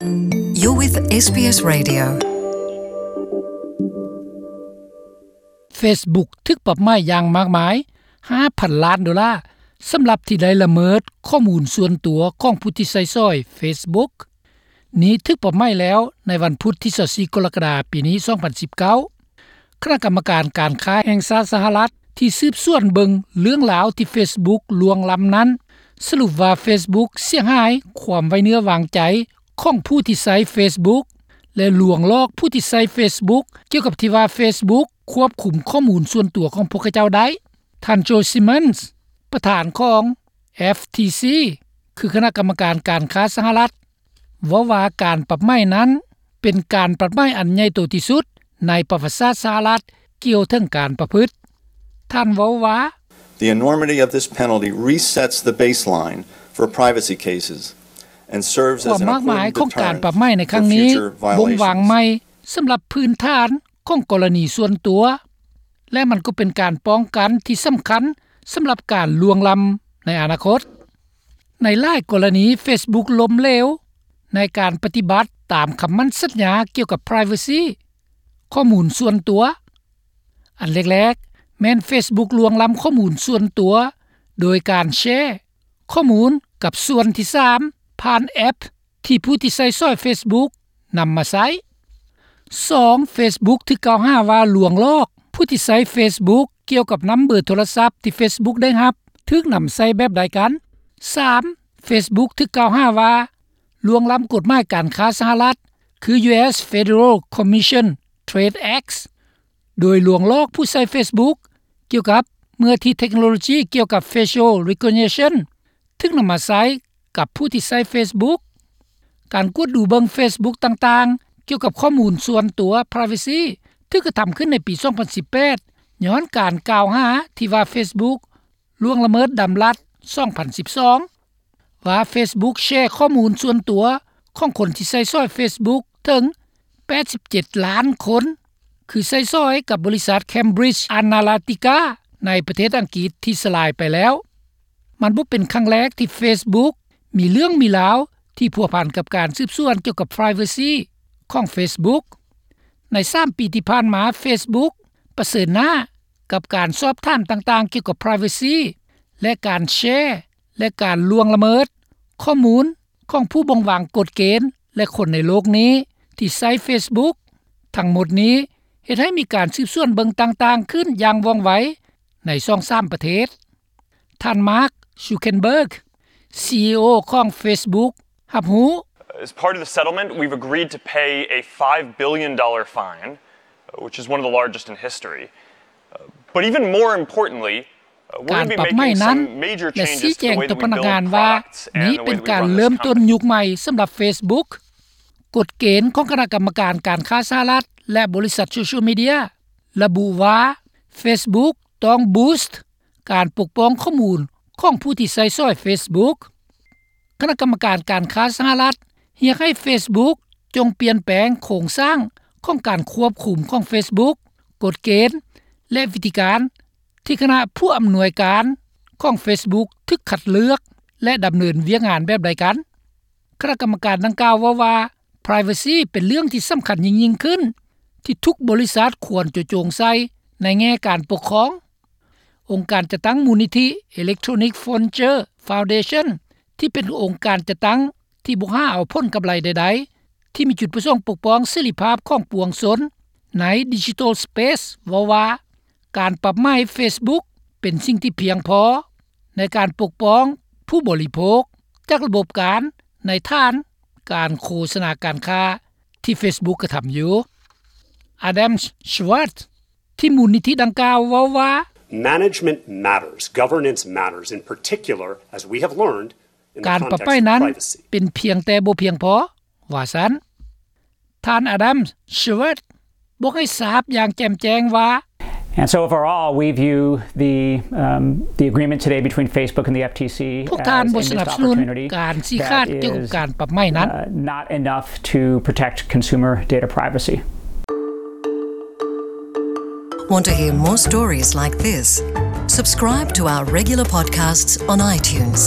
You're with ເອສ ບີ ເອສ Radio. Facebook ຖືກປັບໃໝຢ່າງມາກມາຍ ຫ້າພັນລ້ານໂດລາ ສຳລັບທີ່ໄດ້ລະເມີດຂໍ້ມູນສ່ວນຕົວຂອງຜູ້ທີ່ໃຊ້ສອຍ Facebook. ນີ້ຖືກປັບໃໝແລ້ວໃນວັນພຸດທີຊາວສີ່ ກໍລະກະດາ ປີນີ້ ສອງພັນສິບເກົ້າ. ຄະນະກຳມະການການຄ້າແຫ່ງຊາດສະຫະລັດ ທີ່ສືບສວນເບິ່ງເລື່ອງລາວທີ່ Facebook ລ່ວງລ້ຳນັ້ນ ສະຫຼຸບວ່າ Facebook ເສຍຫາຍຄວາມໄວ້ເນື້ອວາງໃຈຂອງຜູ້ທີ່ໃຊ້ Facebook ແລະ ລວງຫຼອກຜູ້ທີ່ໃຊ້ Facebook ກ່ຽວກັບທີ່ວ່າ Facebook ຄວບຄຸມຂໍ້ມູນສ່ວນຕົວຂອງພວກເຂົາເຈົ້າໄດ້. ທ່ານ ໂຈ ຊິມອນສ໌ ປະທານຂອງ FTC ຄືຄະນະກຳມະການການຄ້າສະຫະລັດ ເວົ້າວ່າການປັບໃໝນັ້ນ ເປັນການປັບໃໝອັນໃຫຍ່ໂຕທີ່ສຸດໃນປະຫວັດສາດສະຫະລັດກ່ຽວເຖິງການປະພຶດ. ທ່ານເວົ້າວ່າ The enormity of this penalty resets the baseline for privacy cases and serves as an important deterrent for future violations. ຄວາມມາກມາຍຂອງການປັບໃໝໃນຄັ້ງນີ້ບົ່ງວາງໃໝ່ສຳລັບພື້ນຖານຂອງກໍລະນີສ່ວນຕົວ ແລະ ມັນກໍເປັນການປ້ອງກັນທີ່ສຳຄັນສຳລັບການລ່ວງລ້ຳໃນອະນາຄົດ. ໃນຫຼາຍກໍລະນີ Facebook ລົ້ມເຫຼວໃນການປະຕິບັດຕາມຄຳໝັ້ນສັນຍາກ່ຽວກັບ privacy ຂໍ້ມູນສ່ວນຕົວ. ອັນແລກໆ ແມ່ນ Facebook ລ່ວງລ້ຳຂໍ້ມູນສ່ວນຕົວ ໂດຍການແຊຂໍ້ມູນກັບສ່ວນທີສາມ ຜ່ານແອັບທີ່ຜູ້ທີ່ໃຊ້ສອຍ Facebook ນຳມາໃຊ້. ສອງ Facebook ຖືກກ່າວຫາວ່າລວງຫຼອກຜູ້ທີ່ໃຊ້ Facebook ກ່ຽວກັບນຳເບີໂທລະສັບທີ່ Facebook ໄດ້ຮັບ ຖືກນຳໃຊ້ແບບໃດກັນ. ສາມ Facebook ຖືກກ່າວຫາວ່າລ່ວງລ້ຳກົດໝາຍການຄ້າສະຫະລັດ ຄື US Federal Commission Trade Act ໂດຍລວງຫຼອກຜູ້ໃຊ້ Facebook ກ່ຽວກັບເມື່ອທີ່ເທັກໂນໂລຈີກ່ຽວກັບ facial recognition ຖືກນຳມາໃຊ້ກັບຜູ້ທີ່ໃຊ້ Facebook. ການກວດດູເບິ່ງ Facebook ຕ່າງໆ ກ່ຽວກັບຂໍ້ມູນສ່ວນຕົວ privacy ຖືກກະທຳຂຶ້ນໃນປີສອງພັນສິບແປດ ຍ້ອນການກ່າວຫາທີ່ວ່າ Facebook ລ່ວງລະເມີດດຳລັດ ສອງພັນສິບສອງ ວ່າ Facebook ແຊຂໍ້ມູນສ່ວນຕົວຂອງຄົນທີ່ໃຊ້ສອຍ Facebook ເຖິງ ແປດສິບເຈັດລ້ານຄົນ ຄືໃຊ້ສອຍກັບບໍລິສັດ Cambridge Analytica ໃນປະເທດອັງກິດທີ່ສະລາຍໄປແລ້ວ. ມັນບໍ່ເປັນຄັ້ງແລກທີ່ Facebook ມີເລື່ອງມີລາວທີ່ພົວພັນກັບການສືບສວນກ່ຽວກັບ privacy ຂອງ Facebook. ໃນສາມປີທີ່ຜ່ານມາ Facebook ປະເຊີນໜ້າກັບການສອບຖາມຕ່າງໆກ່ຽວກັບ privacy ແລະ ການແຊ ແລະ ການລ່ວງລະເມີດຂໍ້ມູນຂອງຜູ້ບົ່ງວາງກົດເກນ ແລະ ຄົນໃນໂລກນີ້ທີ່ໃຊ້ Facebook. ທັງໝົດນີ້ເຮັດໃຫ້ມີການສືບສວນເບິ່ງຕ່າງໆຂຶ້ນຢ່າງວ່ອງໄວໃນສອງສາມປະເທດ. ທ່ານ Mark Zuckerberg, CEO ຂອງ Facebook ຮັບຮູ້. As part of the settlement, we've agreed to pay a five billion dollar fine, which is one of the largest in history. But even more importantly, ການປັບໃໝນັ້ນ ແລະ ຊີ້ແຈງຕໍ່ພະນັກງານວ່ານີ້ເປັນການເລີ່ມຕົ້ນຍຸກໃໝ່ສຳລັບ Facebook. ກົດເກນຂອງຄະນະກຳມະການການຄ້າສະຫະລັດ ແລະ ບໍລິສັດໂຊຊຽວມີເດຍ ລະບຸວ່າ Facebook ຕ້ອງ boost ການປົກປ້ອງຂໍ້ມູນຂອງຜູ້ທີ່ໃຊ້ສອຍ Facebook. ຄະນະກຳມະການການຄ້າສະຫະລັດ ຮຽກໃຫ້ Facebook ຈົ່ງປ່ຽນແປງໂຄງສ້າງຂອງການຄວບຄຸມຂອງ Facebook, ກົດເກນ ແລະ ວິທີການທີ່ຄະນະຜູ້ອຳນວຍການຂອງ Facebook ຖືກຄັດເລືອກ ແລະ ດຳເນີນວຽກງານແບບໃດກັນ. ຄະນະກຳມະການດັ່ງກ່າວເວົ້າວ່າ privacy ເປັນເລື່ອງທີ່ສຳຄັນຍິ່ງໆຂຶ້ນ ທີ່ທຸກບໍລິສັດຄວນຈະໂຈງໃສ່ໃນແງ່ການປົກຄອງ. ອົງການຈັດຕັ້ງມູນນິທິ Electronic Frontier Foundation ທີ່ເປັນອົງການຈັດຕັ້ງທີ່ບໍ່ຫາເອົາຜົນກຳໄລໃດໆ ທີ່ມີຈຸດປະສົງປົກປ້ອງເສລີພາບຂອງປວງຊົນໃນ Digital Space ເວົ້າວ່າ ການປັບໃໝ Facebook ເປັນສິ່ງທີ່ພຽງພໍໃນການປົກປ້ອງຜູ້ບໍລິໂພກຈາກລະບົບການໃນຖານການໂຄສະນາການຄ້າທີ່ Facebook ກະທຳຢູ່. Adam Schwartz ທີ່ມູນນິທິດັ່ງກ່າວເວົ້າວ່າ Management matters, governance matters, in particular, as we have learned, in the context of privacy. ການປັບໃໝນັ້ນເປັນພຽງແຕ່ບໍ່ພຽງພໍ ວ່າຊັ້ນ. ທ່ານ Adam Schwartz ບອກໃຫ້ຊາບຢ່າງແຈ່ມແຈ້ງວ່າ And so overall, we view the, um, the agreement today between Facebook and the FTC ພວກທ່ານບໍ່ສະໜັບສະໜູນການຊີ້ຂາດກ່ຽວກັບການປັບໃໝນັ້ນ. Not enough to protect consumer data privacy. Want to hear more stories like this? Subscribe to our regular podcasts on iTunes.